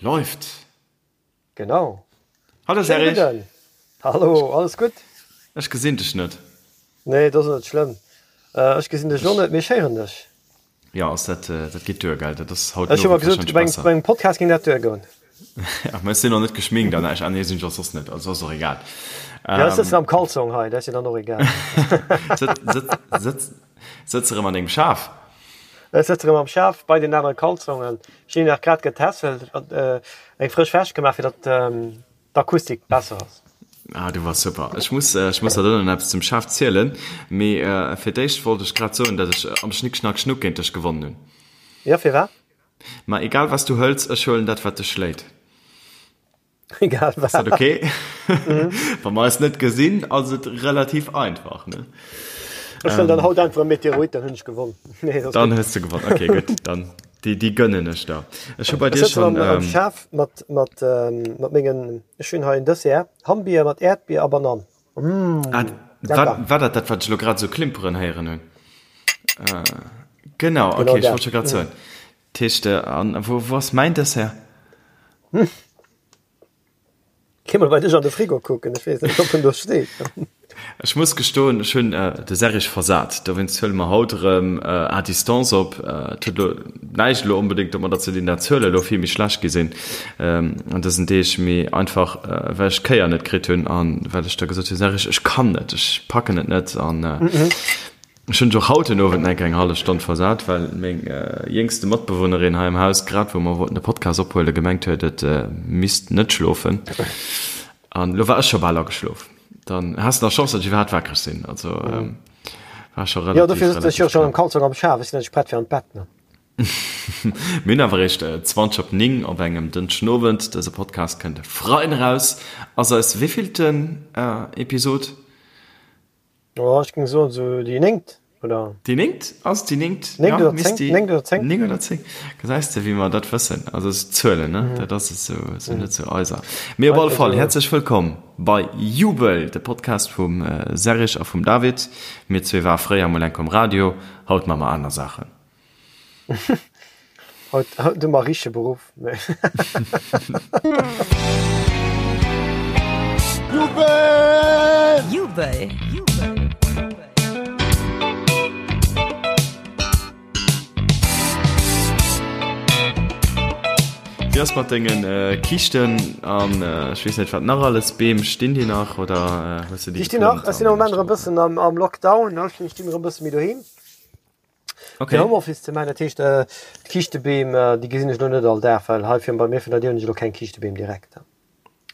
Läuft! Genau. Hallo Schéine Serge! Gudden! Hallo, alles gutt? Ech gesinn dech net. Nee, dat ass net schlëmm. Ech gesinn dech och net, mee ech héieren dech. Jo, ass dat, dat geet duer, gell? Dat ass haut Ech hu den mer Owend gesot, warscheinlech bei besser. engem Podcast géing dat duergoen. Ja, mä ech sinn och net geschminkt an näischt. Ah nee, sinn ech och soss net, also ass och egal. Ja, ech sëtzen am Kalzong hei, dat ass jo dann och egal. Sëtz, sëtz erëm an dengem Schaf? Ech sëtz erëm am Schaf bei den anere Kalzongen. Ech hunn nach grad getässelt, eng frësch Wäsch gemaach, fir datt d'Akustik besser ass. Ah, du wars super. Ech muss, ech muss der dann nach eppes zum Schaf zielen, mee fir d'éischt wollt ech grad soen, datt ech am Schnick Schnack Schnuck géint dech gewonnen hunn. Jo, firwat? Ma egal wat s du hëls, ech huelen dat wat dech schléit. Egal wat. Ass dat okay? Mhm. Wa mer eis net gesinn, ass et relativ einfach, ne? Ech huelen dann haut einfach e Meteorit, dann hunn ech gewonnen. Nee, das dann hues du gewonnen. Okay, gutt. Dann déi, déi gönnen ech der. Ech hu bei dir Ech sëtzen schon. am, am Ähm, Schaf mat, mat, ähm, mat mengen, ech hunn hei en Dessert, Hammbier mat Äerdbier a Banann. Mm, ah, lecker. war, war dat dat, wat ech lo grad sou klimperen héieren hunn? Äh, genau, Genau okay, ech dat. wollt scho grad soen. Dat heescht, an wou, wou ass mäin Dessert? Hm. Geh mol bei dech an de Frigo kucken, ech weess net, ob en do steet. Ech muss gestoen, ech hunn de Serrig versat. Dowéinst huele mer haut erëm à distance op. Et huet elo näischt elo onbedéngt domadder ze dinn, dat d'Zuele elo vill méi schlecht gi sinn an dësen Deeg, mee einfach well ech d'Kéier net kritt hunn a well ech da gesot hunn, Serrig, ech kann net, ech packen et net an Ech hunn och haut den Owend enk eng hallef Stonn versat, well meng jéngste Matbewunnerin hei am Haus, grad wou mer wollten de Podcast ophuelen, gemengt huet, et misst net schlofen. An elo war ech scho bal ageschlof. Dann has de nach Chance, datt ech iwwerhaapt wakereg sinn. Also war scho Jo, dofir relativ, sëtzen ech jo relativ schonn am knapp. Kalzong am Schaf. Ech sinn net prett fir an d'Bett, ne? Mir hunn awer eréischt 20 op 9 op engem Dënschden Owend. Dëse Podcast kënnt e Freiden eraus. Ass eis wéivillten Episod? Oh, ech géing soen esou déi néngt, oder? Déi néngt? Ass et déi néngt? Néngt Ja, oder misst zéng, déi néngt oder zéng. néng oder zéng. Gesäis de, wéi mer dat wëssen. Also es Zuelen, ne? Dat ass esou, esou net sou eiser. Mee op alle Einfach Fall, esou. häerzlech wëllkomm bei Jubel, de Podcast vum Serrig a vum David. Mir zwee ware fréier mol enk um Radio, haut maache mer aner Saachen. Haut, haut hu mer richtege Beruff. Jubel! Jubel! Wéi ass mat dengen Kiischten an ech weess net wat nach alles, Beem, stinn déi nach oder hues de déi Déi stinn nach. geplëmmt Ech sinn am an Moment erëm e bëssen am Lockdown, ne? Ech stinn erëm e bësse méi doheem. Okay. Fir Homeoffice ze maachen, dat heescht d'Kiischtebeem, déi gesinn ech elo net all Dag, well hei vir bei mir virun der Dier hunn ech elo keng Kiischtebeem direkt.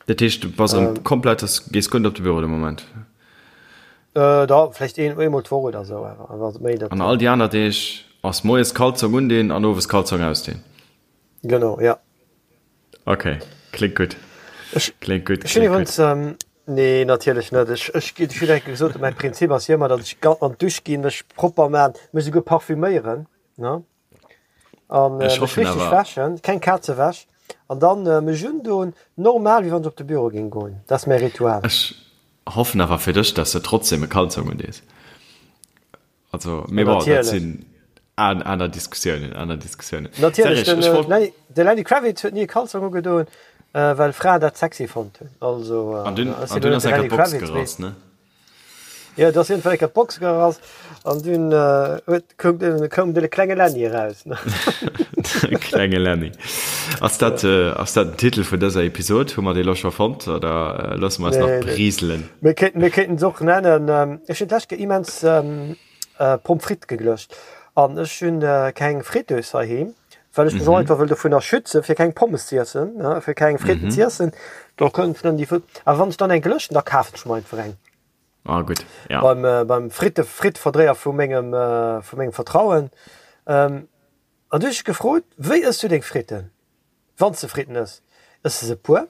Dat heescht du bass erëm komplett, gees guer net op de Büro de Moment? Da vläicht een, eemol d'Woch oder esou, awer awer méi dat. An all déi aner Deeg ass moies Kalzong undinn an owes Kalzong ausdinn? Genau, ja. Ok, kléngt gutt. Ech, Kléngt gutt, ech hunn kléngt gutt. iwwregens, nee natierlech net, ech, ech hunn eng Kéier gesot, mäi Prinzip ass jo ëmmer, datt ech ga an d'Dusch ginn, mech propper man, mech esouguer parfüméieren, ne, an Ech mech hoffen richteg awer. wäschen, keng Kazewäsch, an dann mech undoen, normal wéi wann ech op de Büro géing goen. Dat ass mäi Ritual. Ech hoffen awer fir dech, dass de trotzdem e Kalzong undees. Also, mee bon, dat sinn aner Diskussiounen, aner Diskussiounen. Natierlech, den, äh, Lenny, de Lenny Kravitz huet ni e Kalzong ugedoen, äh, well Fraen dat sexy fonnt hunn. Also, äh, an dünn, an dünn ass enker d'Box gerass, ne? Ja, dat ass jedenfalls enker d'Box gerass an dünn äh, huet, koum, koum de klenge Lenny eraus. Ne? De klenge Lenny. Ass dat, äh, ass dat den Titel vun dëser Episod? Hu mer dee lo scho fonnt oder äh, loosse mer eis nach Nee, nee. briselen? Mir kéinten, mir kéinten se och nennen, ähm, ech hunn d'lescht Kéier immens ähm, äh, Pommes frites geglëscht an ech hunn äh, keng Friteuse heiheem, well ech mech och einfach wëll dovunner schützen, fir keng Pommes ze iessen, ne, fir keng Fritten ze iessen. Do kënnt dann déi, awer wann ech dann eng glëschen, da kafen ech mer einfach eng. Ah gutt, ja. Beim, äh, beim Fritte, Fritteverdréier vu mengem, äh, vu mengem Vertrauen. Ähm, An du hues ech gefrot, wéi ëss du deng Fritten, wann s de Fritten ëss? Ëss de se puer?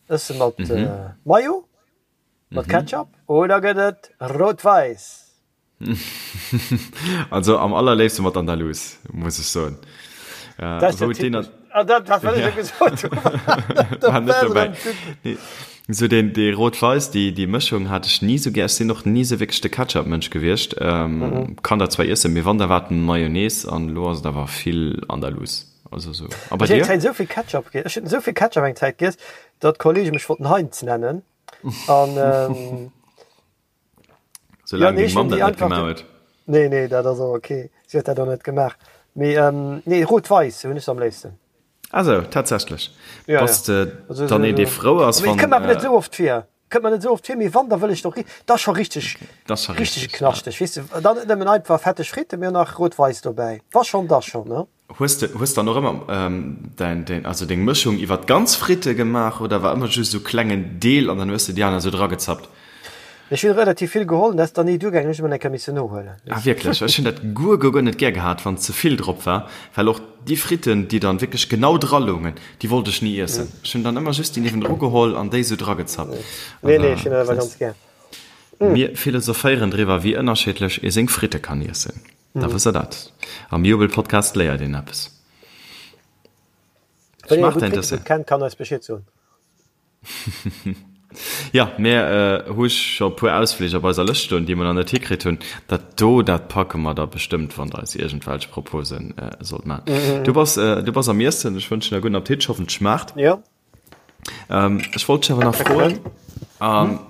Ëss se mat Mayo, mat Ketchup oder gëtt et rout-wäiss? Also am allerléifste mat Andalous, muss ech soen. Dat ass jo typesch. Ah, dat wat ech jo gesot hunn. War net dobäi. Nee. Sou deen, dee rout-wäiss, déi, déi Mëschung hat ech ni sou gär. Ech sinn och ni sou wierklech de Ketchup-Mënsch gewiescht. Kann dat zwar iessen, mee wann, da war et Mayonnaise an elo ass et awer vill Andalous. Also sou. A bei dir? Ech hunn eng Zäit esou vill Ketchup giess, ech hunn esou vill Ketchup eng Zäit giess, datt Kollege mech wollten Heinz nennen. An ähm, Soulaang deng Mamm dat net gemaach huet. Nee, nee, dat ass och ok. Si huet dat och net gemaach. Mee ähm, nee, rout-wäiss hunn ech se am léifsten. Ah sou, tatsächlech. Ja, Bass de ja. dann een, dee frou ass, wann. Kënnt mer awer net esou oft vir. Kënnt mer net esou oft vir, mee wann, da wëll ech doch, dat ass scho richteg, Dat ass scho richteg richteg, ja. knaschteg, weess de. Dann net nëmmen einfach fetteg Fritten, mee och nach rout-wäiss dobäi. Wa schonn, da schonn, ne? Hues de, hues dann och ëmmer däin, däin, also deng Mëschung iwwer d'ganz Fritte gemaach oder war ëmmer just esou klengen Deel an dann hues de déi aner esou dragezappt? Ech hunn relativ vill geholl, dat ass dann ni duergaangen, ech hunn ëmmer eng Kéier missen nohuelen. Ah wierklech? Ech hunn dat guer guer guer net gär gehat wann ze vill drop war, well och déi Fritten déi dann wierklech genau dra loungen, déi wollt ech ni iessen. Ech hunn dann ëmmer just déi niewendru geholl an déi sou dragezappt. Nee nee, ech hunn dat awer ganz gär. Mir philosophéieren driwwer wéi ënnerscheedlech ee seng Fritte kann iessen. Da wësst der dat. Am Jubelpodcast léiert een eppes. Wann een e gutt Frittebud kennt, kann eis Bescheed soen. Jo, mir hu scho e puer Ausflich op eiser Lëscht stoen, déi mer nach net hikritt hunn. Dat do, dat packe mer da bestëmmt, wann Der eis iergendwelch Propose sollt maachen. Du bass, du bass am Iessen. Ech wënschen der gudden Appetit. Ech hoffen, et schmaacht. Jo. Ech wollt dech awer nach froen, an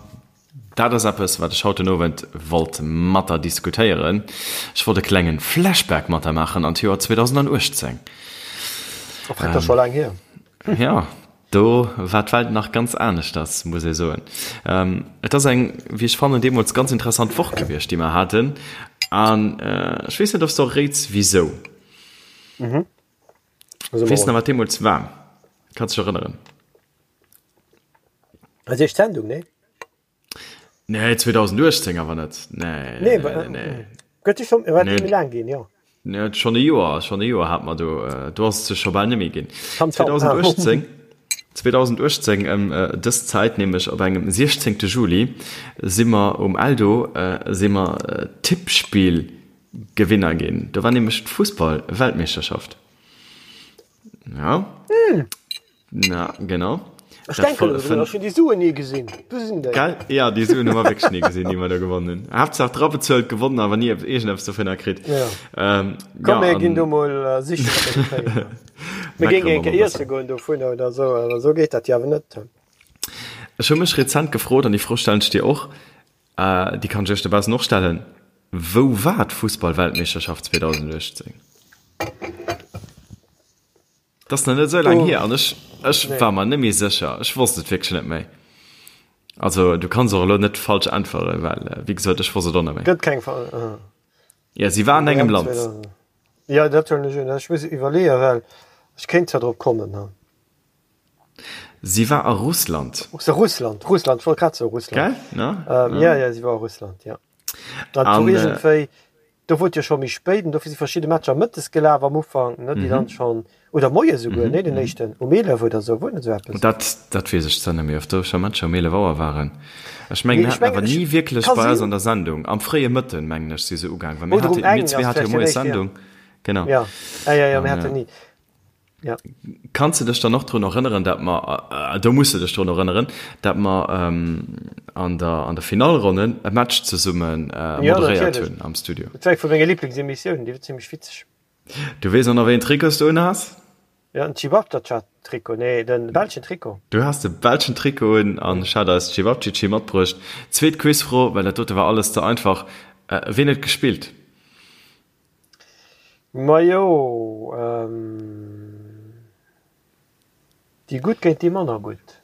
dat ass eppes, wat ech haut den Owend wollt mat der diskutéieren. Ech wollt e klengen Flashback mat der maachen an d'Joer 2018. Oh, dat ass scho laang hier. Jo. Do war d'Welt nach ganz aneschters, muss ee soen. Et ass eng, wéi ech fannen, deemools ganz interessant Woch gewiescht, déi mer haten. An ech weess net, ob s de och réits, wisou. Weess nach, wat deemools war? Kanns dech erënneren? Eis éischt Sendung, nee? Nee, 2018 awer net. Nee, nee, nee, nee. Gëtt schon, nee. méi laang ginn, jo. Nee, schon e Joer, schon e Joer hat mer do, äh, do ass et scho bal net méi ginn. 2018, 2018 ëm äh, dës Zäit, nämlech op engem 16. Juli, si mer um Eldo, äh, si mer äh, Tippspill-Gewinner ginn. Do war nämlech d'Fussball-Weltmeeschterschaft. Ja. Mm. Na, genau. Ech denken elo drun, ech hunn déi Suen ni gesinn. Wou sinn déi? Gell? Ja, déi Suen hu mer wierklech ni gesinn, déi mer do gewonnen hunn. Haaptsaach dra bezuelt, gewonnen, awer ni iergendeppes dovunner kritt. Ja. Ähm, Komm, mir ginn do mol sichen, ob mer déi kréien. Mir géingen eng Kéier iesse goen dovunner oder esou, awer esou geet dat jo awer net. Ech hu mech rezent gefrot, an déi Fro stellen ech dir och, déi kann ech iech dobaussen och stellen, Wou war d'Fussballweltmeeschterschaft 2018? Dat ass nach net esou laang hier an ech, ech war mer net méi sécher. Ech wosst et wierklech net méi. Also du kanns och elo net falsch äntweren, well wéi gesot, ech wosst et och net méi. Gëtt keng Fall. Ah. Ja, si war an engem Land. Ja, dat huelen ech un. Ech muss iwwerleeën, well ech kéint zwar drop kommen. Ha. Si war a Russland. Russland, Russland, ech wollt grad soen Russland. Gell? Ne? Ähm, ja, ja, si war a Russland, ja. Dat wor iergendwéi, do wor et jo scho méi spéit an dofir si verschidde Matcher mëttes gelaf am Ufank, ne, déi dann schonn, oder moies esouguer, nee, den éischten um 11 oder esou, wor net esou eppes? Dat, dat weess ech zwar net méi, ob do scho Matcher um 11 Auer waren. Ech mengen, mir haten awer ni wierklech bei eis an der Sendung, am fréie Mëtten, mengen ech, si se ugaang, well mir hate, mir zwee hate jo moies Sendung, genau. Ja, ja, ja, ja, mir haten ni. Ja. Kanns de dech dann och drun erënneren, dat mer, do muss de dech drun erënneren, dat mer an der, an der Finallronne e Match zesumme moderéiert hunn am Studio? Dat war eng vu menge Liblingsemissiounen, déi war zimmlech witzeg. Du weess och nach, wéi een Trikot s du unhas? Ja, den Cevapcici-Trikot, nee, de belschen Trikot. Du has de belschen Trikot un an ech hat eis Cevapcici matbruecht. Zweet Quizfro, well dat dote war alles ze einfach, Ween huet gespillt? Majo, déi Gutt géint déi manner Gutt.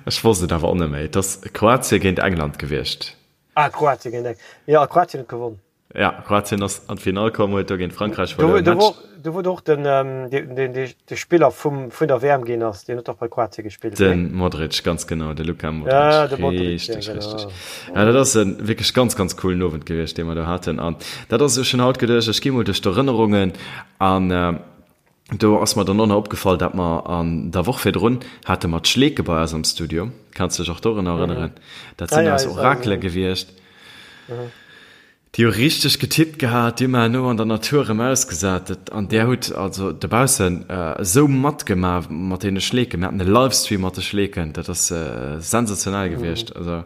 Ech wosst et awer och net méi. Et ass Kroatien géint England gewiescht. Ah, Kroatien géint England. Jo, a Kroatien huet gewonn. Ja, Kroatien ass an d'Finall komm, huet do géint Frankräich verluer. Do wor, do wor och den, deen, dee Spiller vum, vun der WM ginn ass, deen huet och bei Kroatien gespillt, nee? De Modric, ganz genau, de Luka Modric. Ja, de Modric, ja, genau. Richtig, richtig. Ja, dat ass e wierklech ganz, ganz coolen Owend gewiescht, dee mer do haten. An dat ass, ech hunn haut geduecht, ech gi mol duerch d'Erënnerungen an do ass mer dann och nach opgefall, dat mer an der Woch virdrun hate mer d'Schleeke bei eis am Studio. Kanns dech och dorunner erënneren? Dat sinn eis Orakele gewiescht. Déi hu richteg getippt gehat, déi hu mer herno an der Natur erëm ausgesat. Dat, an där hutt also dobaussen esou matgemaach mat deene Schleeken. Mir haten e Livestream mat de Schleeken, dat ass sensationell gewiescht. Also,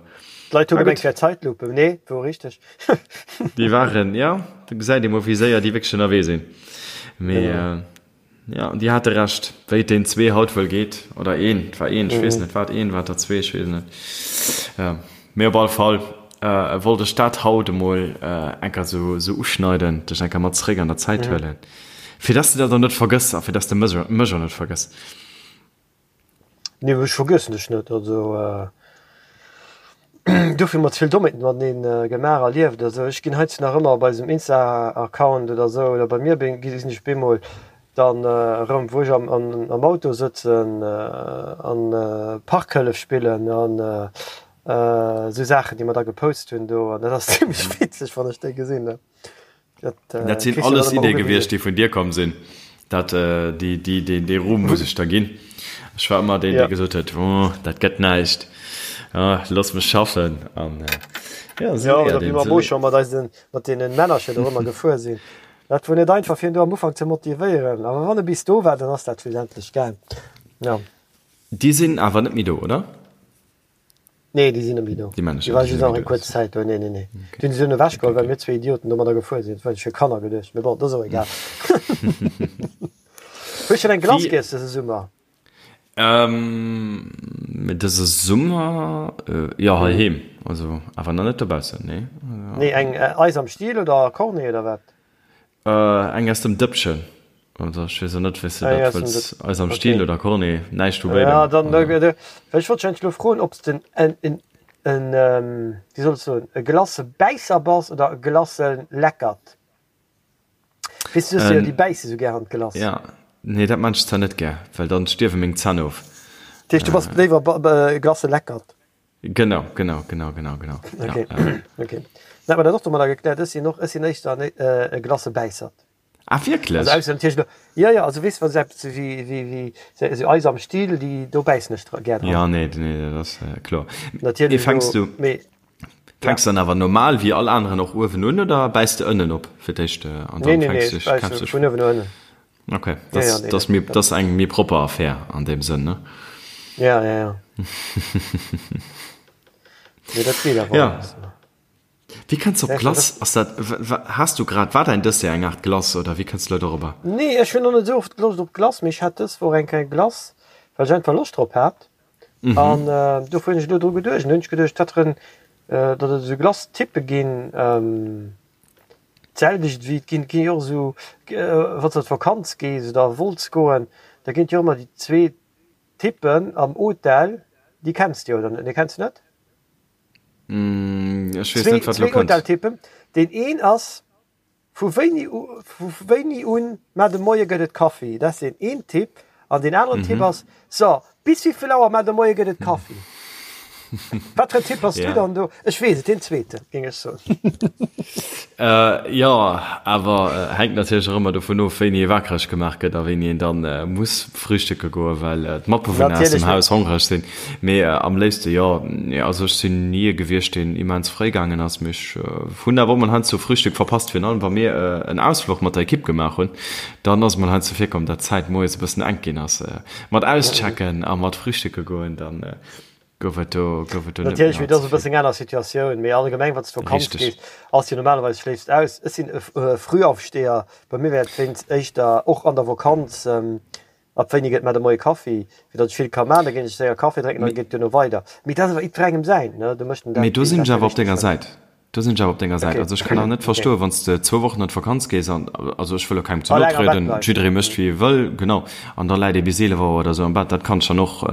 D'Leit hu gemengt, et wär Zeitlupe. Nee, wor richteg. Déi waren, jo, do gesäit ee mol, wéi séier déi wierklech ënnerwee sinn. Mee. Ja, an déi hate Recht, wéi et deen zwee haut wuel geet, oder een, et war een, ech weess net, war et een, war et der zwee, ech weess et net. Ja, mee op alle Fall wollt ech dat haut emol enker esou uschneiden, dech enker mat zeréck an der Zäit huelen, fir dass de dat och net vergëss a fir dass de mech och net vergëss. Nee, ech vergiessen dech net. Also dofir hu mer ze vill Dommheeten mateneen gemaach, erlieft. Also ech ginn heiansdo nach ëmmer op eisem Insta-Account oder esou, oder bei mir gesinn ech bemol dann erëm, wou ech am Auto sëtzen an Parkhëllef spillen an esou Saachen, déi mer da gepost hunn do. An dat ass zimmlech witzeg, wann ech déi gesinn. Dat, äh, dat sinn alles Idee gewiescht, déi vun dir komm sinn. Dat, äh, déi, déi, déi, dee Ruhm muss ech der ginn. Ech war ëmmer deen, ja. dee gesot huet, oh, dat gëtt näischt. Ah, looss mech schaffen. An, äh, ja, so ja, oder wéi mer mo scho mat eisen, mat deenen Männercher do ëmmer gefuer sinn. Dat wor net einfach fir en do am Ufank ze motivéieren, awer wann e bis do war, dann ass dat schlussendlech gaang. Ja. Déi sinn awer net méi do, oder? Nee, déi sinn net méi do. Déi Männercher, déi sinn net méi do. Kuerz Zäit do, nee, nee, nee. Okay. Déi hunn se dunn ewechgeholl, well mir zwee Idioten domadder gefuer sinn. Dat war fir Kanner geduecht, mee bon, dat ass och egal. Hues schonn eng Glace giess dëse Summer? Ähm, dëse Summer, jo, heiheem, also awer nach net dobaussen, nee. Nee, eng Eis am Stiel oder Cornet oder wat? Eng aus dem Dëppchen. Also ech weess och net, wéi s de dat wëlls. Eis am Stiel oder Cornet, näischt vu béidem. Ja, dann, well ech wollt dech eigentlech elo froen, ob s de en, en, en, wéi soll ech soen, e Glacebäisser bass oder e Glaceleckert. Weess du, du hues jo déi bäisse sou gär an d'Glace. Ja, nee, dat maan ech zwar net gär, well dann stierwe meng Zänn of. Dat heescht, du bass léiwer e Glaceleckert? Genau, genau, genau, genau, genau. Okay, ja, ja. okay. Dann hat man dat och domadder gekläert. Ech sinn och, ech sinn éischter en, e Glacebäissert. Ah, wierklech? Also ausser natierlech elo, jo, jo, also weess, wa se eppes wéi, wéi, wéi esou Eis am Still, déi, do bäissen ech dra, gär dran. Ja, nee, nee, dat ass kloer. Natierlech Mee fänks elo, du, mee, fänks ja. dann awer normal wéi all aneren och uewen un oder bäiss de ënnen op fir d'éischt an Nee, dann nee, nee, fänks ech dech, bäisse kämpfs dech vun uewen no ënnen. Okay, Ja, das, ja, nee, das, dat, mir, dat, das eng méi propper Affär an deem Sënn, ne? ja, ja, ja. Nee, dat geet awer Ja. alles. Wéi kënns du op Ja, Glace? Ass dat, has du grad, war däin Dessert eng Aart Glace oder wéi kënns du elo dorobber? Nee, ech hunn och net esou oft Loscht op Glace, mee ech hat dës Woch eng kleng Glace, well ech einfach Loscht drop hat. An dofir hunn ech elo dru geduecht. An du hunn ech geduecht, dat rën, datt et esou Glace-Typpe ginn, d'selwecht wéi et ginn, et ginn jo och esou, wann s de an d'Vakanz gees oder wollts goen, da ginn et jo ëmmer déi zwee Typpen am Hotel, déi kenns de jo, oder net? Nee, kenns de net? Ech weess net, wat elo Zwee kënnt. Hoteltypen. Deen een ass, Vu wéini u, vu wéini un mar de Moie gëtt et Kaffi? Dat ass deen een Typ. An deen aneren Typ ass, So, bis wéivill Auer mar de Moie gëtt et Kaffi? Wat fir en Typ bass du dann do? Ech weess et, deen zweeten, géing ech soen. Jo, awer hänkt natierlech och ëmmer dovun of, wéini ee wakereg gemaach gëtt a wéini een dann muss frühstücke goen, well d'Matbewunner aus dem Haus hongreg sinn. Mee am léifste jo. Also ech sinn ni ee gewiescht, deen immens fréi gaangen ass, mee ech hunn awer och mol heiansdo Frühstück verpasst, virun allem wa mir en Ausfluch mat der Ekipp gemaach hunn, dann ass et mol heiansdo virkomm, dat d'Zäit moies e bëssen enk ginn ass mat auschecken a mat frühstücke goen, dann gouf et do gouf et do net méi Natierlech, mee dat allze ass e vill. bëssen eng aner Situatioun, mee allgemeng wann s de Vakanz Richteg. gees, ass jo normalerweis schléifs aus. Ech sinn e Frühaufsteher, bei mir wär et wéinst éischter och an der Vakanz, Ab wéini gëtt mar de Moie Kaffi? Fir datt ech vill ka man, da ginn ech séier Kaffi drénken an da geet et duerno weider. Mee dat ass awer jiddwerengem säin, ne? Do mécht en Mee dat, do wéi en sinn dat ech fir awer op richteg denger fënnt. Säit. Do sinn ech awer op denger Säit. Okay, Also ech kann awer net okay. verstoen, wann s de zwou Wochen an d'Vakanz gees an, also ech wëll elo kengem ze A no laang am Bett trieden, bleift. jidderee mécht wéi e wëll, genau, an da läit ee bis 11 Auer oder esou am Bett, dat kann ech dann och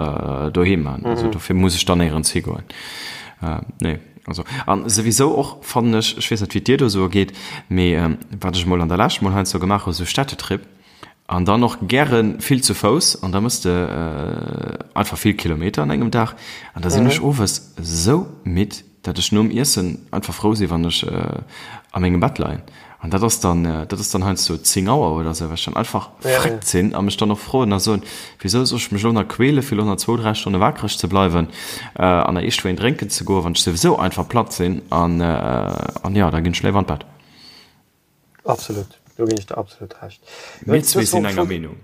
doheem maachen. Also dofir muss ech dann néierens higoen. Nee, also an souwisou och fannen ech, ech weess net wéi et dir do esou ergeet, mee wat ech emol an der Lescht mol heiansdo gemaach hu, esou Städtetrip, An dann och gäre vill zu Fouss an da mëss de einfach vill Kilometer an engem Dag. An da sinn ech owes esou midd, dat ech nom Iessen einfach frou sinn, wann ech a mengem Bett leien. An dat ass dann, dat ass dann heiansdo 10 Auer oder esou, well ech dann einfach fréckt sinn a mech dann och froen a soen, Wisou soll ech mech elo nach quäle fir elo nach zwou, dräi Stonne wakereg ze bleiwen an nach eescht wéin drénken ze goen, wann ech souwisou einfach platt sinn. An jo, da ginn ech léiwer an d'Bett. Absolut, do ginn ech der absolut Recht. Mir zwee sinn enger Meenung.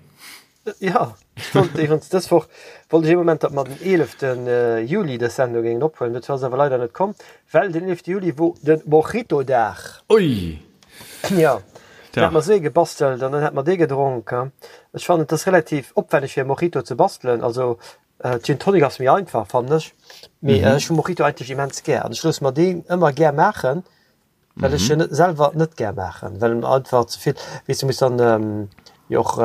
Ja, ech wollt iwwregens dës Woch wollt ech ee Moment, datt mer den 11. Juli dës Sendung géingen ophuelen. Dozou ass et awer leider net komm, well den 11. Juli wor de Mojito-Dag. Ui! Ja. Dann hat mer esou ee gebastelt an dann hat mer dee gedronk. Ech fannen, et ass relativ opwänneg fir e Mojito ze bastelen. Also Gin Tonic ass méi einfach, fannen ech. Mee ech hu Mojito eigentlech immens gär an ech loosse mer deen ëmmer gär maachen, well ech en selwer net gär maachen, well en einfach ze vill, weess du muss dann jo och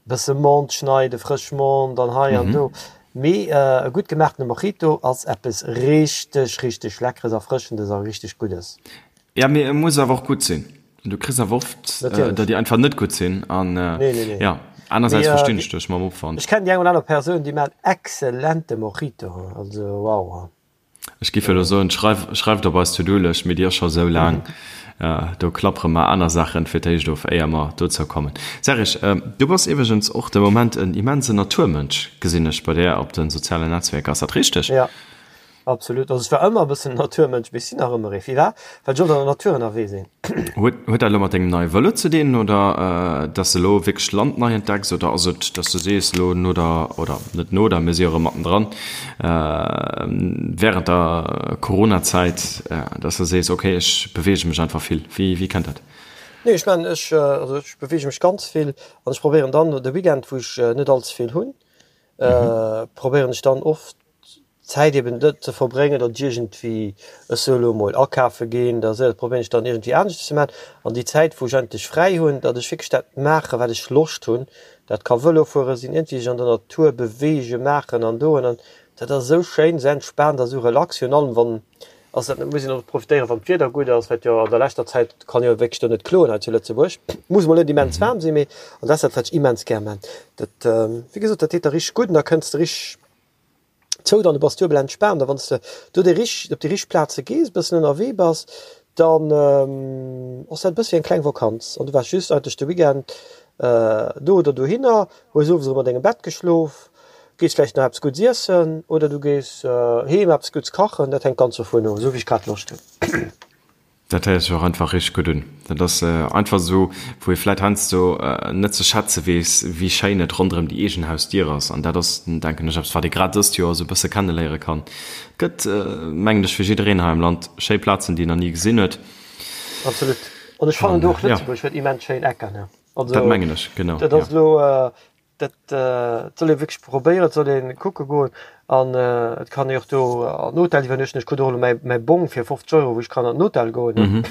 bësse Menthe schneiden, frësch Menthe an hei an do. Mee e gutt gemaachtene Mojito ass eppes richteg, richteg Leckeres, Erfrëschendes a richteg Guddes. Ja, mee e muss awer och gutt sinn. Du kriss awer oft, der déi einfach net gutt sinn an jo, anersäits verstinn ech dech mam Opwand. Ech kennen déi eng oder aner Persoun, déi maachen exzellente Mojito, also wow. Ech giff elo soen, schreif, schreift op eis To-Do-Lëscht, mee déi ass scho sou laang. Do klappere mer aner Saachen fir d'éischt of, éier mer dozou kommen. Serge, du bass iwwregens och de Moment en immensen Naturmënsch, gesinn ech bei där op de sozialen Netzwerker. Ass dat richteg? Jo, absolut. Also ech war ëmmer e bëssen en Naturmënsch, mee ech sinn nach ëmmer ee. Firwat? Well ech oft an der Natur ënnerwee sinn. Huet huet dat elo mat dengem neie Vëlo ze dinn oder dass de elo wierklech d'Land nei entdecks oder ass et, dass du sees elo no der, oder net no der, mir si jo erëm mattendran, während der Coronazäit, dass de sees, okay ech beweege mech einfach vill. Wéi wéi kënnt dat? Nee ech man ech also ech beweege mech ganz vill an ech probéieren dann de Weekend wou ech net all ze vill hunn, probéieren ech dann oft d'Zäit eben net ze verbréngen, datt ech iergendwéi, ech soe lo emol, akafe ginn, da dat probéieren ech dann iergendwéi aneschters ze maachen. An déi Zäit, wou ech eigentlech fräi hunn, datt ech wierklech dat maachen, wat ech Loscht hunn. Dat ka Vëlo fuere sinn, iergendwéi sech an der Natur beweegen, maachen an doen. An dat ass esou schéin, esou entspaant a esou relax. Virun allem wann, ass dat net, muss een och profitéieren, wann d'Wieder gutt ass, wat jo an der leschter Zäit, kann jo wierklech do net kloen hei zu Lëtzebuerg, muss mol net immens waarm sinn, mee an dat ass dat, wat ech immens gär maan. Dat, wéi gesot, dat deet der richteg gutt an da kënns de richteg zou, dann du bass duebel entspaant a wann s de do déi rich op déi rich Plaze gees, e bëssen ënnerwee bass, dann ass dat e bësse wéi eng kleng Vakanz an du waars just eigentlech de Weekend do oder dohinner, hues owes erëm an dengem Bett geschlof, gees vläicht nach eppes Guddes iessen oder du gees heem eppes Guddes kachen, dat hänkt ganz dovun of, esou wéi ech grad Loscht hunn. Dat héiert sech och einfach richteg gutt un. Dat ass einfach esou, wou ee vläit heiansdo net ze schätze weess, wéi schéin et ronderëm déi eegen Hausdier ass. An dat ass, denken ech, eppes, wat ee grad dëst Joer esou e bësse kenneléiere kann. Et gëtt, mengen ech, fir jiddereen hei am Land schéi Plazen, déi een nach ni gesinn huet. Absolut. An ech fannen och, Lëtzebuerg huet immens schéin Ecken. Also, dat mengen ech, genau. Dat ass elo. Dat soll ee wierklech probéieren, et soll ee kucke goen an et kann ee och do an den Hotel iwwernuechten. Ech krut och elo mäi mäi Bong fir 50 Euro, wou ech kann an den Hotel goen.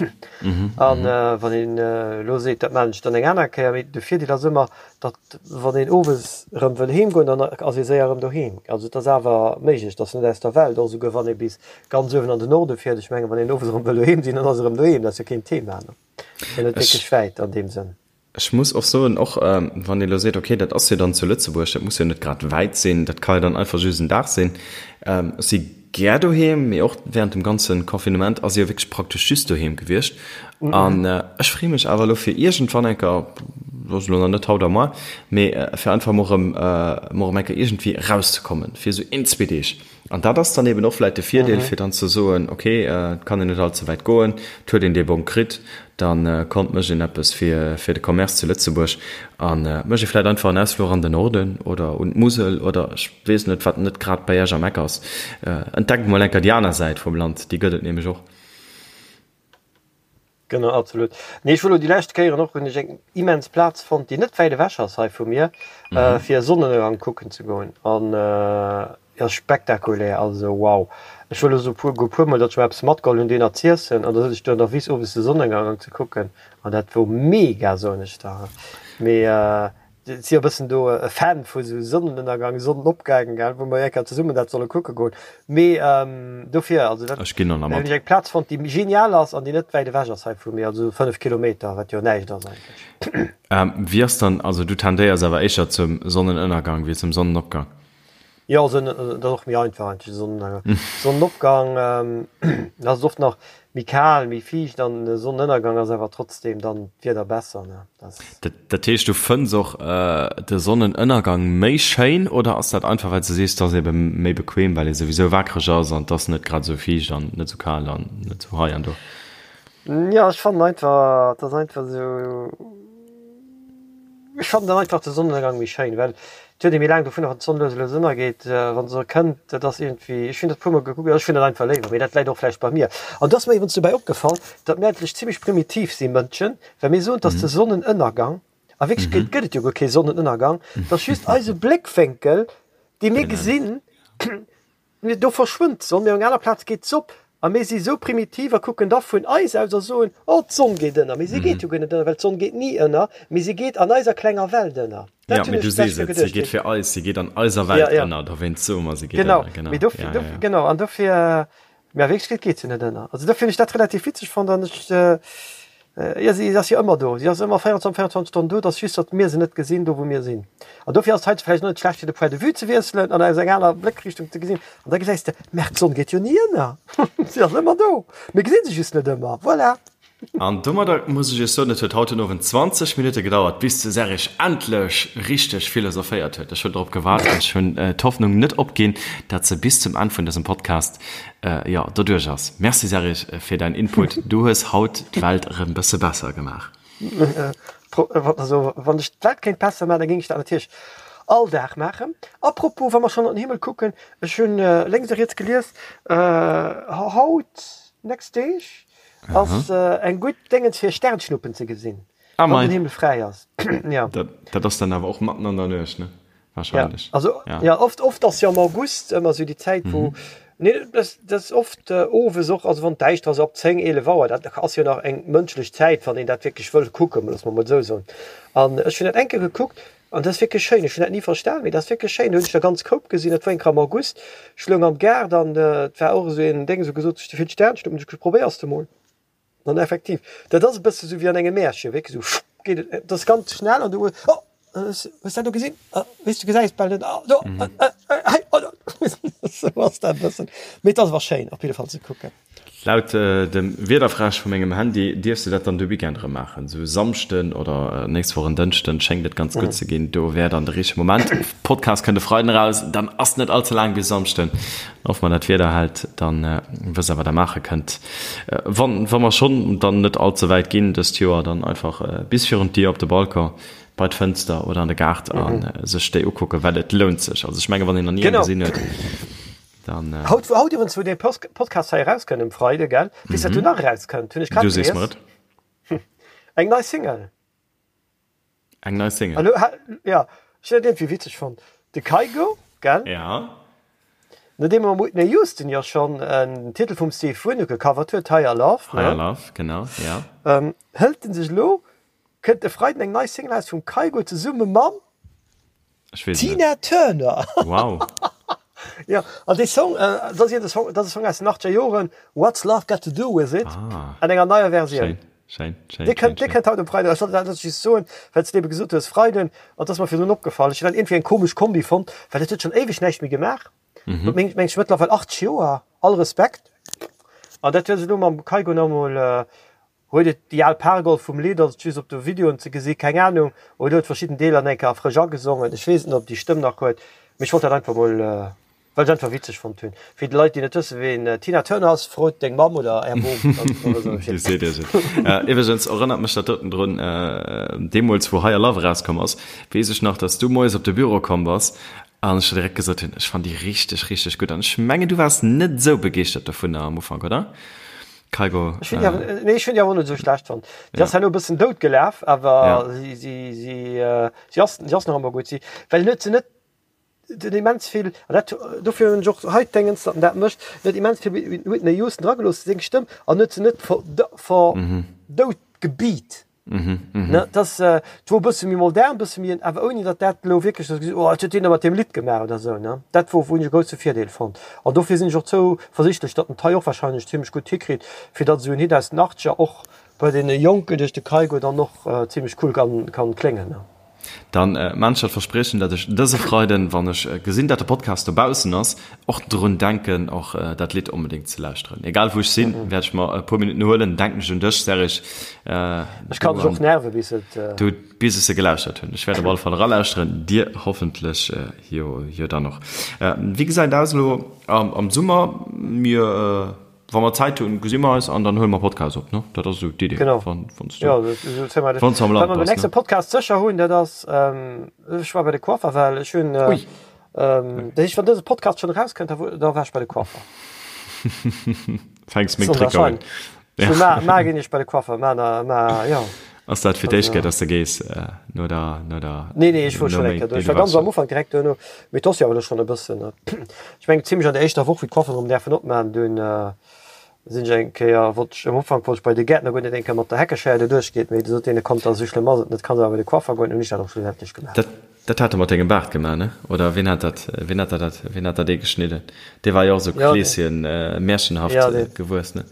An wann een elo seet, dat maachen ech dann eng aner Kéier, mee de Virdeel ass ëmmer, datt wann een owes erëm wëll heem goen, dann ass ee séier erëm doheem. Also et ass awer méiglech, et ass net aus der Welt, och esouguer wann ee bis ganz uewen an den Norde fiert. Ech mengen, wann een owes erëm wëll doheem sinn, dann ass e erëm doheem, dat ass jo keen Thema. Ass jo net wierklech wäit an deem Sënn. Ech muss och soen, och wann ee lo seet, okay, dat ass jo dann zu Lëtzebuerg, dat muss jo net grad wäit sinn, dat ka jo dann einfach just en Dag sinn. Ech si gär doheem, mee och während dem ganze Confinement ass ee jo wierklech praktesch just doheem gewiescht. An ech freeë mech awer elo fir iergendwann eng Kéier, dat ass elo nach net haut a moar, mee fir einfach mol erëm, mol erëm eng Kéier iergendwéi erauszekommen, fir esou een, zwee Deeg. An dat ass dann eben och vläit de Virdeel, fir dann ze soen, okay, et kann een net all ze wäit goen, et huet een dee Bong kritt, da kommt, mécht een eppes fir fir de Commerce zu Lëtzebuerg a mécht ee vläit einfach en Ausfluch an den Norden oder un d'Musel oder ech weess net, wat net grad bei Iech am Eck ass. Entdeckt mol enker déi aner Säit vum Land, déi gëtt et nämlech och. Genau, absolut. Nee, ech wor elo déi lescht Kéieren och, hunn ech eng immens Plaz fonnt, déi net wäit ewech ass hei vu mir, fir e Sonnenënnergang kucken ze goen. An jo, spektakulär, also wow. Ech wor elo esou puer, go puer mol, datt ech mer eppes matgeholl hunn, deen z'iessen, an da sëtz ech do an der Wiss owes de Sonnenënnergang ze kucken, an dat wor mega, soen ech der. Mee Si jo bëssen do e Fan vu sou Sonnenënnergang, Sonnenopgang, gell, wou mer eng Kéier zesummen dat solle kucke goen. Mee dofir, also dat, Ech ginn dann hunn ech eng Plaz fonnt, déi genial ass an déi net wäit ewech ass hei vu mir, also 5 Kilometer, wat jo näischt ass eigentlech. Wéi ass dann, also du tendéiers awer éischer zum Sonnenënnergang wéi zum Sonnenopgang? Jo, dat ass och méi einfach eigentlech, de Sonnenënnergang. Sonnenopgang ass et oft nach méi kal, méi fiicht an de Sonnenënnergang ass awer trotzdem dann d'Wieder besser, ne? Dat. Dat heescht du fënns och de Sonnenënnergang méi schéin oder ass dat einfach well s de sees, et ass ebe méi bequem well ee souwisou waakreg ass an et ass net grad esou fiicht an net esou kal an net esou hei an do? Jo, ech fannen einfach, et ass einfach esou. Ech fannen dann einfach de Sonnenënnergang méi schéin, well. Et huet ee méi laang dovunner, wann d'Sonn lues a lues ënnergeet, wa se kënnt. Dat ass iergendwéi, ech hunn dat e puermol gekuckt, ech hunn dat einfach léiwer, mee dat läit och vläicht bei mir. An do ass mer iwwregens dobäi opgefall, datt mir eigentlech zimmlech primitiv si Mënschen, well mir soen, dass de Sonnenënnergang, a Wierklechkeet gëtt et jo guer kee Sonnenënnergang, dat ass just eise Bléckwénkel, dee mir gesinn, Do verschwënnt d'Sonn, mee op enger aner Plaz geet s'op. A mir si sou primitiv a kucken da vun eis aus a soen, Oh, d'Sonn geet ënner. Mee si geet jo guer net ënner, well d'Sonn geet ni ënner, mee si geet an eiser klenger Welt ënner. Dat hunn ech d'lescht Kéier geduecht. Si geet fir eis, si geet an eiser Welt ënner, dowéinst soe mer, si geet ënner. Genau, mee dofir, dofir, genau, an dofir, mee a Wierklechkeet geet se net ënner. Also dofir hunn ech dat relativ witzeg fonnt an ech, Jo, si ass jo ëmmer do. Si ass ëmmer 24, 24 Stonnen do. Et ass just, datt mir se net gesinn, do wou mir sinn. An dofir ass et heiansdo vläicht och net schlecht, fir de Point de vue ze wiesselen an aus enger aner Bléckrichtung ze gesinn. An da gesäis de, Merr, d'Sonn geet jo ni ënner. Si ass ëmmer do. Mir gesi se just net ëmmer. Voilà. An domadder muss ech Iech soen, et huet haut den Owend 20 Minutte gedauert, bis de Serge endlech richteg philosophéiert huet. Ech hunn drop gewaart an ech hunn d'Hoffnung net opginn, datt se bis zum Enn vun dësem Podcast Jo, doduerch ass. Merci Serge fir däin Input, du hues haut d'Welt erëm bësse besser gemaach. Also wann ech d'Welt kéint besser maachen, da géing ech dat natierlech all Dag maachen. A propos, wa mer schonn an den Himmel kucken, ech hunn lénks a riets gelies, haut, nächst Deeg ass eng gutt Déngens fir Sternschnuppen ze gesinn, wann den Himmel fräi ass. Dat ass dann awer och matten an der Nuecht, ne? Wahrscheinlech. Ja, also, ja. ja oft, oft ass jo am August ëmmer sou déi Zäit, wou. Mhm. Nee, das, das oft äh, owes och, also wann däischter ass, ab 10, 11 Auer, dat ass jo nach eng mënschlech Zäit, wann een dat wierklech wëll kucken, loosse mer mol esou soen. An ech hunn dat eng Kéier gekuckt an dat ass wierklech schéin. Ech hunn dat ni verstan, mee dat ass wierklech schéin. Do hunn ech der ganz Koup gesinn, dat war eng Kéier am August. Ech loung am Gaart an äh, et war och esou een Déng, esou gesot, ech hu vill Sternschnuppen, ech probéiers de mol. An effektiv, dat ass e bësse sou wéi an engem Märchen, wierklech sou schupp geet et, et ass ganz schnell an du hues, oh, hues du dat do gesinn? Weess du gesäis bal net, ah do, hei, oh do. Sou ass dat e bëssen. Mee et ass awer schéin op jidde Fall ze kucken. Laut dem Wiederfräsch vu mengem Handy dierfs de dat dann de Weekend erëm maachen, sou Samschden oder nächst Woch en Dënschden schéngt et ganz gutt ze ginn. Do wär dann de richtege Moment. Podcast kënnt e Freiden eraus, dann ass net all ze laang bis Samschden. Hoffe mer dat Wieder hält, dann wësst der wat der maache kënnt. Wann wa mer schonn dann net all ze wäit ginn dëst Joer, dann einfach bis virun d'Dier op de Balcon, bei d'Fënster oder an de Gaart a sech déi ukucken, well et lount sech. Also ech menge wann een nach ni eng gesinn huet, dann. Haut haut iwwregens wou dee Podcast hei erauskënnt um Freide gell, weess wat do nach erauskënnt, hunn ech grad gelies. Du sees mer et. Eng nei Single. Eng nei Single. Hallo, ha, ja, ech hunn dat iergendwéi witzeg fonnt. De Kygo, gell? Ja. Nodeem mam Whitney Houston jo schonn en Titel vum Steve Winwood gecovert huet, Higher Love, ne? Higher Love, genau, ja. Ähm, hëlt en sech elo, kënnt e Freiden eng nei Single aus vum Kygo zesumme mam Ech weess et net. Tina Turner. Wow. Ja, an dee Song, äh, dat ass de Song, dat ass e Song aus den 80er Joren, What's Love Got to Do With It, ah. an enger neier Versioun. Schéin, schéin, schéin. Dee kënnt, dee kënnt haut um Freiden. Ech wollt dat just soen, well s de ebe gesot hues, Freiden, an dat ass mer virdrun opgefall. Ech hunn dat iergendwéi eng komesch Kombi fonnt, well dat huet schonn éiweg näischt méi gemaach. Mhm. Meng, meng ech mëttlerweil 80 Joer, all Respekt. An dat huet se elo mam Kygo nach emol, äh, Huet et déi al Pargolf vum Lidd, ass et just op de Videoen ze gesi, keng Ahnung, oder huet verschidden Deeler nach eng Kéier frësch agesongen, ech weess et net ob déi Stëmm nach huet, mee ech wollt dat einfach mol, well ech einfach witzeg fonnt hunn. Fir déi Leit déi net wësse ween Tina Turner ass, frot deng Mamm oder är Bom, dann wësse se Bescheed. Déi seet iech et. Iwwregens erënnert mech dat doten drun, deemools wou Higher Love erauskomm ass, weess ech nach, dass du moies op de Büro komm bass an ech der direkt gesot hunn, ech fannen déi richteg, richteg gutt an ech mengen du waars net esou begeeschtert dovunner am Ufank, oder? Kygo, Ech hunn déi awer, nee, ech hunn déi awer och net esou schlecht fonnt. Déi ass herno e bëssen dout gelaf, awer si, si, si, si ass, si ass nach ëmmer gutt. Si, well en huet se net den immens vill, an dat, dofir hunn ech och hei d'Déngens, datt en dat mécht, en huet immens vill Whitney Houston dragelooss, seng Stëmm, an huet se net ver, ver, dout gebeat. Ne, dass et wor e bësse méi modern, e bësse méi, awer ouni datt dat elo wierklech dass gesot, oh wat huet deen da mat deem Lidd gemaach oder esou, ne. Dat wor, hunn ech e grousse Virdeel fonnt. An dofir sinn ech och zouversichtlech, datt en d'hei och wahrscheinlech zimlech gutt hikritt, fir datt esou en Hit aus den Achtzeger och bei deene Jonken duerch de Kygo dann och zimlech cool kann, kann kléngen, ne. Dann maan ech dat Verspriechen, dat ech dëse Freiden, wann ech gesinn, dat de Podcast dobaussen ass, och drun denken, och dat Lidd onbedéngt ze lauschteren. Egal wou ech sinn, wäert ech mer e puer Minutten huelen, denken ech un dech, Serge. Ech kann dech och nerven, bis et. Du, bis ech se gelauschtert hunn. Ech wäert op alle Fall eralauschteren, dir hoffentlech jo, jo dann och. Wéi gesäit et aus elo am Summer? Mir. wa mer Zäit hunn, gesi mer eis an dann huele mer Podcast op, ne? Dat ass esou d'Idee. Genau. Wann, wann s du, Ja, dat, dat, dat, wann s du am Wat Land mer beim bass, nächste ne? Podcast sécher hunn, dat ass, ähm, ech war bei de Coiffer, well ech hunn, äh, Ui. ähm, dat heescht, wann dëse Podcast schonn erauskënnt, da, da war ech bei de Coiffer. Fänks meng Tricker un. Ja. Ma, ma ginn ech bei de Coiffer, ma, na, ma, ja. Ass dat fir d'éischt Kéier, dass de gees no der, no der. Nee, nee, ech wor schonn eng Kéier do. Ech war ganz am Ufank direkt duerno, mee et ass jo awer elo schonn e bëssen. Ech mengen zimlech an der éischter Woch, wéi d'Coifferen erëm däerfen opmaachen, dunn sinn ech eng Kéier, wollt ech, am Ufank wollt ech bei de Gäertner goen, deen eng Kéier mat der Heckeschéier do duerchgeet, mee du sot deen, kommt, esou schlëmm ass et net, kanns awer bei de Coiffer goen. Hunn ech dat och schlussendlech gemaach. Dat, dat hat e mat dengem Baart gemaach, ne? Oder wien hat dat, wien hat dat, wien hat dat ee geschnidden? Dee war jo och esou Kleeschen, märchenhaft gewuess, ne?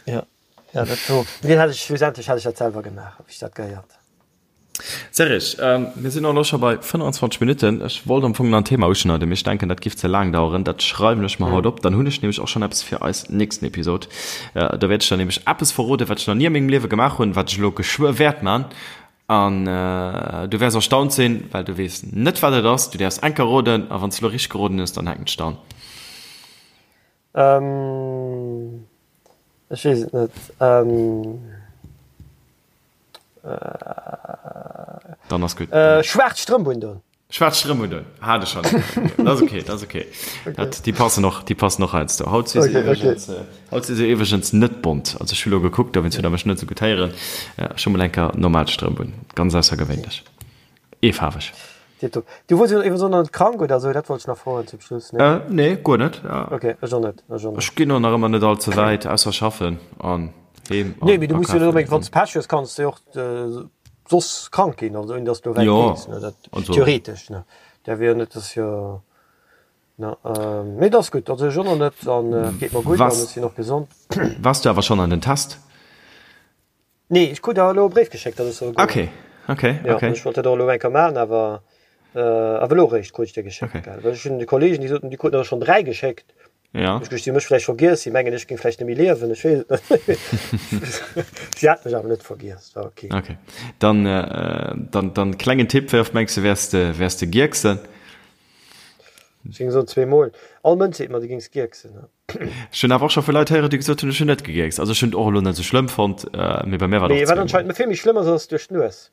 Ja. Ja, dat do, deen hat ech, schlussendlech hat ech dat selwer gemaach, wéi ech dat gehéiert. Serge, mir sinn elo scho bei 25 Minutten. Ech wollt am Fong nach en Thema uschneiden, mee ech denken, dat giff ze laang daueren. Dat schreiwen ech mer haut op. Dann hunn ech nämlech och schonn eppes fir eis nächsten Episod. Do wäert ech der nämlech eppes verroden, wat ech nach ni a mengem Liewe gemaach hunn, wat ech elo geschwë wäert man. An du wäers erstaunt sinn, well du weess net, wat et ass. Du däerfs eng Kéier roden, a wann s du elo richteg geroden hues, dann hänken ech der an. Ähm, ech weess et net. Ähm, Dann ass gutt. Äh, schwaarz Strëmp undoen. Schwaarz Strëmp undoen, hat ech schonn. Dat ass okay, dat ass okay. Dat, déi passen och, déi passen och heiansdo. Haut si se Okay, okay. iwwregens, haut si se iwwregens net bont. Also ech hu lo gekuckt, dowéinst hutt Der mech net esou gutt héieren. Ech hu mol eng Kéier normal Strëmp un, ganz aussergewéinlech. Eefaarweg. Tiptop. Du wors jo iwwregens och nach net krank oder esou, dat wollt ech nach froen zum Schluss, nee? Äh, nee, guer net. Ok, ech och net, ech och net. Ech ginn och nach ëmmer net all ze wäit, ausser schaffen an heem an Nee, mee du muss jo net akafen onbedéngt, wann an. s Pech hues, kanns de jo och soss krank ginn, also ouni dass du wäit Jo, gees, ne, dat also. theoretesch, ne. Dat wier jo net, dass jo, ne, mee et ass gutt, also ech och nach net an et geet mer gutt an ech sinn och gesond. Waars du awer schonn an den Test? Nee, ech krut awer elo e Bréif geschéckt, datt ech soll goen. Okay, okay, Ja, okay. ech wollt dat och elo eng Kéier maachen, awer awer elo eréischt krut ech dee geschéckt, Okay. gell. Well ech hunn de Kollegen, déi soten, déi kruten der schonn 3 geschéckt. Ja. Ech gescht, si hu mech vläicht vergiess, si mengen, ech géing vläicht net méi liewen, ech weess et net. Si hat mech awer net vergiess, war okay. Okay. Dann, dann, dann klengen Tipp, wéi oft mengs de, wäers de, wäers de gierksen? Ech géing soen zweemol. All Mënsch seet mer, du géings gierksen. Ech hunn awer och scho vu Leit héieren, déi gesot hunn, ech hunn net gegierkst. Also ech hunn et och elo net esou schlëmm fonnt, mee bei mir war et Mee och wat zweemol. anscheinend vill méi schlëmm ass, ass duerch d'Nues.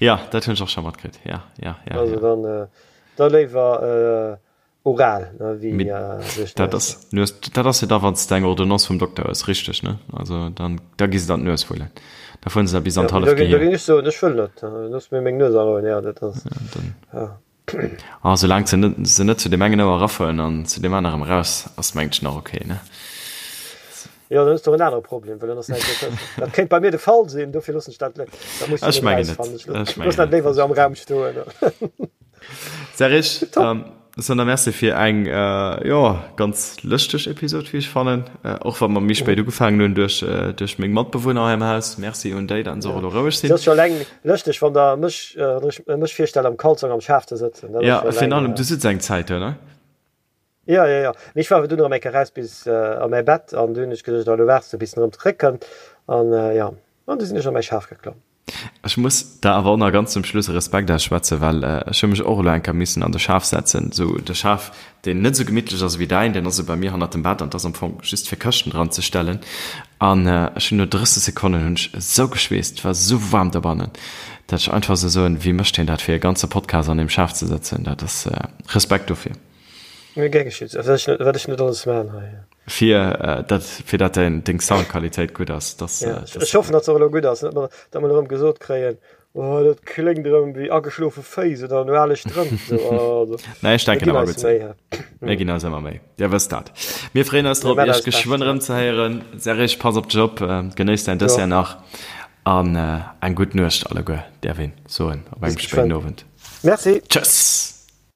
Ja, dat hunn ech och scho matkritt. Ja, ja, ja, Also ja. dann, da léiwer oral, ne, wéi Mee duerch dat d'Nues. ass Nues, dat ass jo da, wann s de eng Ordonnance vum Dokter hues, richteg, ne? Also dann, da gi se der an d'Nues wullen. Da fueren se der bis an Ja, mee d'halleft da géing, da Gehier. géing ech soen, ech wëll net, looss mir meng Nues a Rou. Ja, dat ass, ja. Ah, soulaang se net, se net zu deem engen Ouer erafueren an zu deem anerem eraus, ass mengt ech nach ok, ne? Jo, dann hues de och en anere Problem, well dann ass näischt méi tëschent. Dat kéint bei mir de Fall sinn, dofir loossen ech dat, dat muss ech Ech net mengen net, erausfannen. Ech ech loossen mengen dat net. léiwer esou am Raum stoen. Serge, Top. Dann da merci fir eng, jo, ganz lëschteg Episod, wéi ech fannen, och wa mer méi spéit ugefaangen hunn duerch, duerch meng Matbewunner hei am Haus. Merci un déi, datt se och elo roueg Et sinn. ass jo eleng lëschteg, wann der mech, wann ech mech virstelle am Kalzong am Schaf ze sëtzen. Dat ass Ja, jo virun eleng. allem, du sëtz eng Zäit do, ne? Jo, jo, jo. Mee ech war awer dunn erëm eng Kéier raus bis a mäi Bett an du hunn ech geduecht, oh, elo waarts de bis en erëm zeréckkënnt. An jo, an du sinn ech a mäi Schaf geklomm. Ech muss der awer och nach ganz zum Schluss e Respekt ausschwätzen, well ech hu mech och elo eng Kéier missen an de Schaf setzen. Esou de Schaf, deen net esou gemittlech ass ewéi däin, deen ass esou bei mir hannert dem Bett an 't ass am Fong just fir Këschten dran ze stellen. An ech hunn no 30 Sekonnen hunn ech esou geschweesst, et war esou waarm dobannen, dat ech einfach esou soen, wéi mécht hien dat fir e ganze Podcast an deem Schaf ze sëtzen? Dat ass Respekt dofir. Gär geschitt. Wat ech net alles maan hei. Fir dat, fir dat däin, deng Soundqualitéit gutt ass, dass, Ja, dass ech hoffen, datt se och elo gutt ass, net mer, datt mer erëm gesot kréien, oh, dat kléngt erëm wéi ageschlofe Féiss oder no ale Strëmp. So, also, Nee, ech mir denken ginn awer eis gutt sinn. Méi, hä? Mir ginn eis ëmmer Méi. Dir wësst dat. Mir freeën eis Mir drop, man Iech eist Bescht, geschwënn ja. erëm ze héieren. Serge, pass op dech op, genéiss däin Du Dessert och. nach an eng gutt Nuecht alleguer, däerf een soen op Bis engem spéiden geschwënn. Owend. Merci. Tschëss!